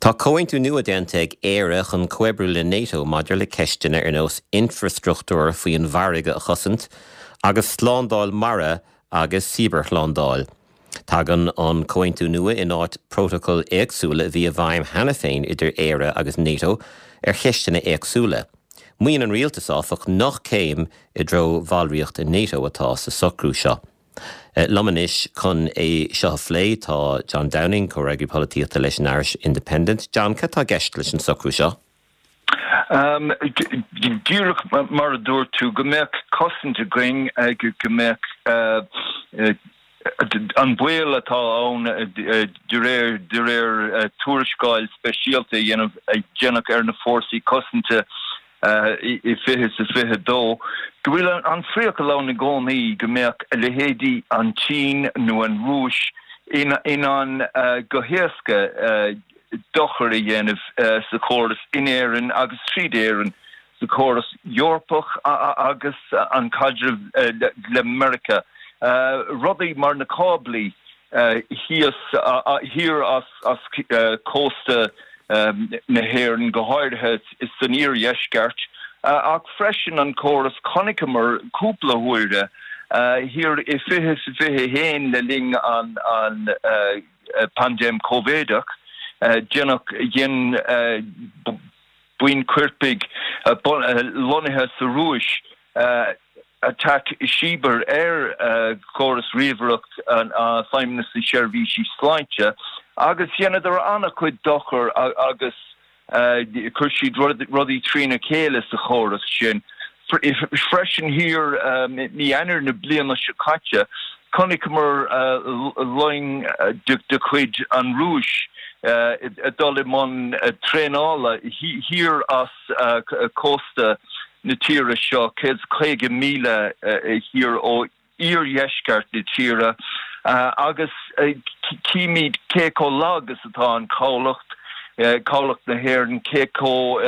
Tá comhaontú nua déanta ag Éire chun comhoibriú le NATO maidir le ceisteanna ar nós infreastruchtúr faoin bhfarraige a chosaint agus slándáil mara agus cibearshlándáil. Tagann an comhaontú nua in áit prótacail éagsúla a bhí i bhfeidhm cheana féin idir Éire agus NATO ar cheisteanna éagsúla. Maíonn an rialtas, áfach, nach céim i dtreo bhallraíocht i NATO atá sa socrú seo. Liom anois chun é seo a phlé tá John Downing, Comhfhreagraí Polaitíochta leis an Irish Independent. John, cad tá i gceist leis an socrú seo? Díreach mar a dúirt tú, go mbeadh cosaint againn, go mbeadh an baol atá ann de réir de réir tuarascáil speisialta a dhéanamh a déanadh ar na fórsaí cosanta i 2022, go bhfuil an phriacal ann i gcónaí go mbeadh a leithéidí an tSín nó an Rúis in ann go héasca dochar a dhéanamh sa chóras in Éirinn agus tríd Éirinn sa chóras Eorpach agus an caidreamh le Meiriceá. Rudaí mar na cáblaí thíos, thiar as cósta na hÉireann, go háirithe san iardheisceart, ach freisin an córas, chonaiceamar cúpla huaire thiar i 2021 le linn an paindéim Covideach, déanadh, dhein buíon coirpigh lonnaithe sa Rúis, atac cibear ar chóras ríomhaireacht Feidhmeannas na Seirbhísí Sláinte agus dheineadar an-chuid dochar agus chuir siad rudaí trína chéile sa chóras sin. Freisin thiar mí Eanáir na bliana seo caite, chonaiceamar loing de chuid an Rúis ag dul i mbun traenála thiar as cósta na tíre seo, 150 míle thiar ó iardheisceart na tíre, agus címid cé chomh lag is atá an cabhlach, cabhlach na hÉireann, cé chomh,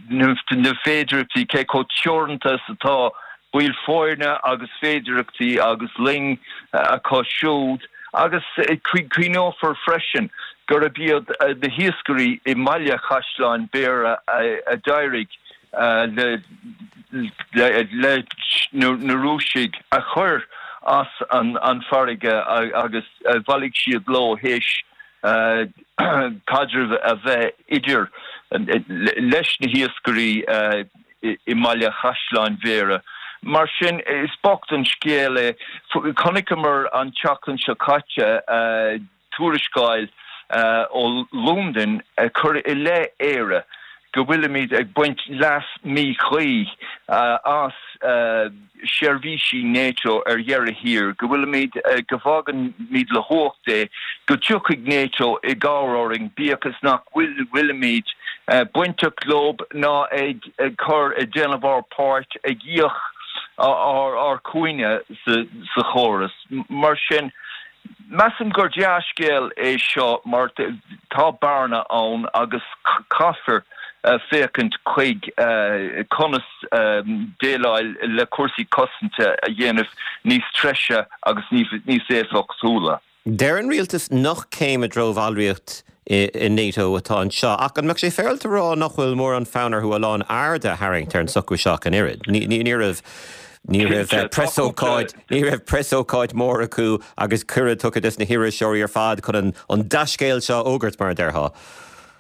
na féidearthachtaí, cé chomh teoranta is atá baill foirne agus féidearthachtaí agus loing acu siúd, agus cuimhneofar freisin gurb iad na hiascairí i mBaile Chaisleáin Bhéarra a d'éirigh leis na Rúisigh a chur as an bhfarraige agus bhailigh siad leo théis caidreamh a bheith idir leis na hiascairí i mBaile Chaisleáin Bhéarra. Mar sin, is bocht an scéal é. Chonaiceamar an tseachtain seo caite tuarascáil ó Londain ag cur i leith Éire go bhfuilimid ag baint leas míchuí as seirbhísí NATO ar dheireadh thiar, go bhfuilimid, go bhfágaimid le huacht é, go dtiocfaidh NATO i gcabhair orainn, bíodh is nach bhfuilimid bainteach leo ná ag cur, ag déanamh ár páirt, ag íoc ár cúinne sa chóras. Mar sin, measaim gur dea-scéal é seo mar tá bearna ann agus caithfear féachaint chuig conas déileáil le cúrsaí cosanta a dhéanamh níos treise agus níos éifeachtúla. Deir an rialtas nach céim i dtreo bhallraíocht i NATO atá anseo, ach an mbeadh sé féaráilte a rá nach bhfuil mórán fonn orthu a lán airde a tharraingt ar an socrú seo ach an oiread? Ní raibh ní raibh preasócáid ní raibh preasócáid mór acu agus cuireadh tugtha dos na hiriseoirí ar fad chun an dea-scéal seo a fhógairt, mar a déarfá.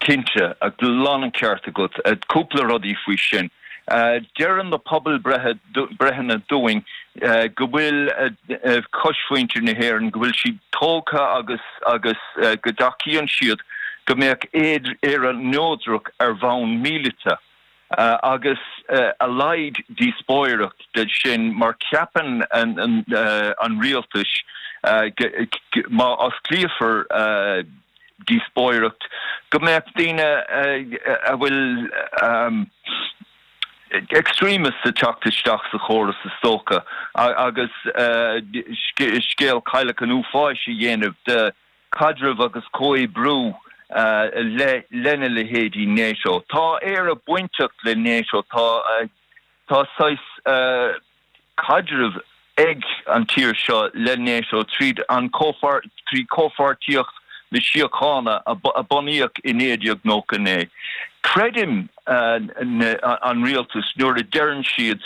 Cinnte, lán an ceart agat. Cúpla rudaí faoi sin. Deireann na pobalbhreitheanna dúinn go bhfuil cosmhuintir na hÉireann, go bhfuil siad tógtha agus agus go dtacaíonn siad go mbeadh Éire neodrach ar bhonn míleata. Agus a laghad díospóireacht de sin mar ceapann an rialtas má osclaíofar díospóireacht go mbeadh daoine a bhfuil extremists ag teacht isteach sa chóras is dócha agus scéal cailleach an uafáis a dhéanamh de caidreamh agus comhoibriú lena leithéidí NATO. Tá Éire bainteach le NATO, tá tá saghas caidreamh ag an tír seo le NATO tríd an trí comhpháirtíocht. na Síochána a bunaíodh i 1999. Creidim an rialtas nuair a deireann siad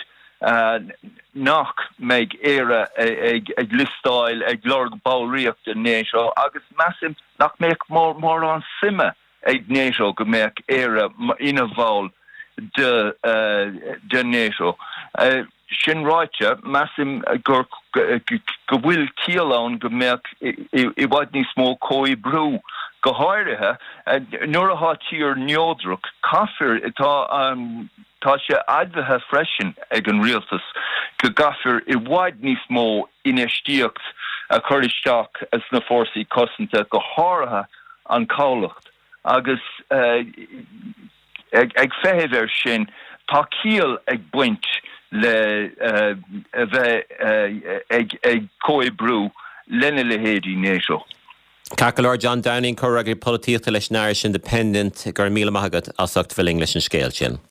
nach mbeidh Éire ag liostáil ag lorg ballraíocht i NATO agus measaim nach mbeadh mórán suime ag NATO go mbeadh Éire ina bhall de NATO. Sin ráite, measaim gur go bhfuil ciall ann go mbeadh i bhfad níos mó comhoibriú, go háirithe nuair atá tír neodrach. Caithfear, tá tá sé admhaithe freisin ag an rialtas go gcaithfear i bhfad níos mó infheistíocht a chur isteach sna fórsaí cosanta, go háirithe an cabhlach, agus ag feitheamh air sin, tá ciall ag baint le a bheith ag comhoibriú lena leithéidí NATO. Ceart go leor, John Downing, Comhfhreagraí Polaitíochta leis an Irish Independent, go raibh míle maith agat as ucht bheith linn leis an scéal sin.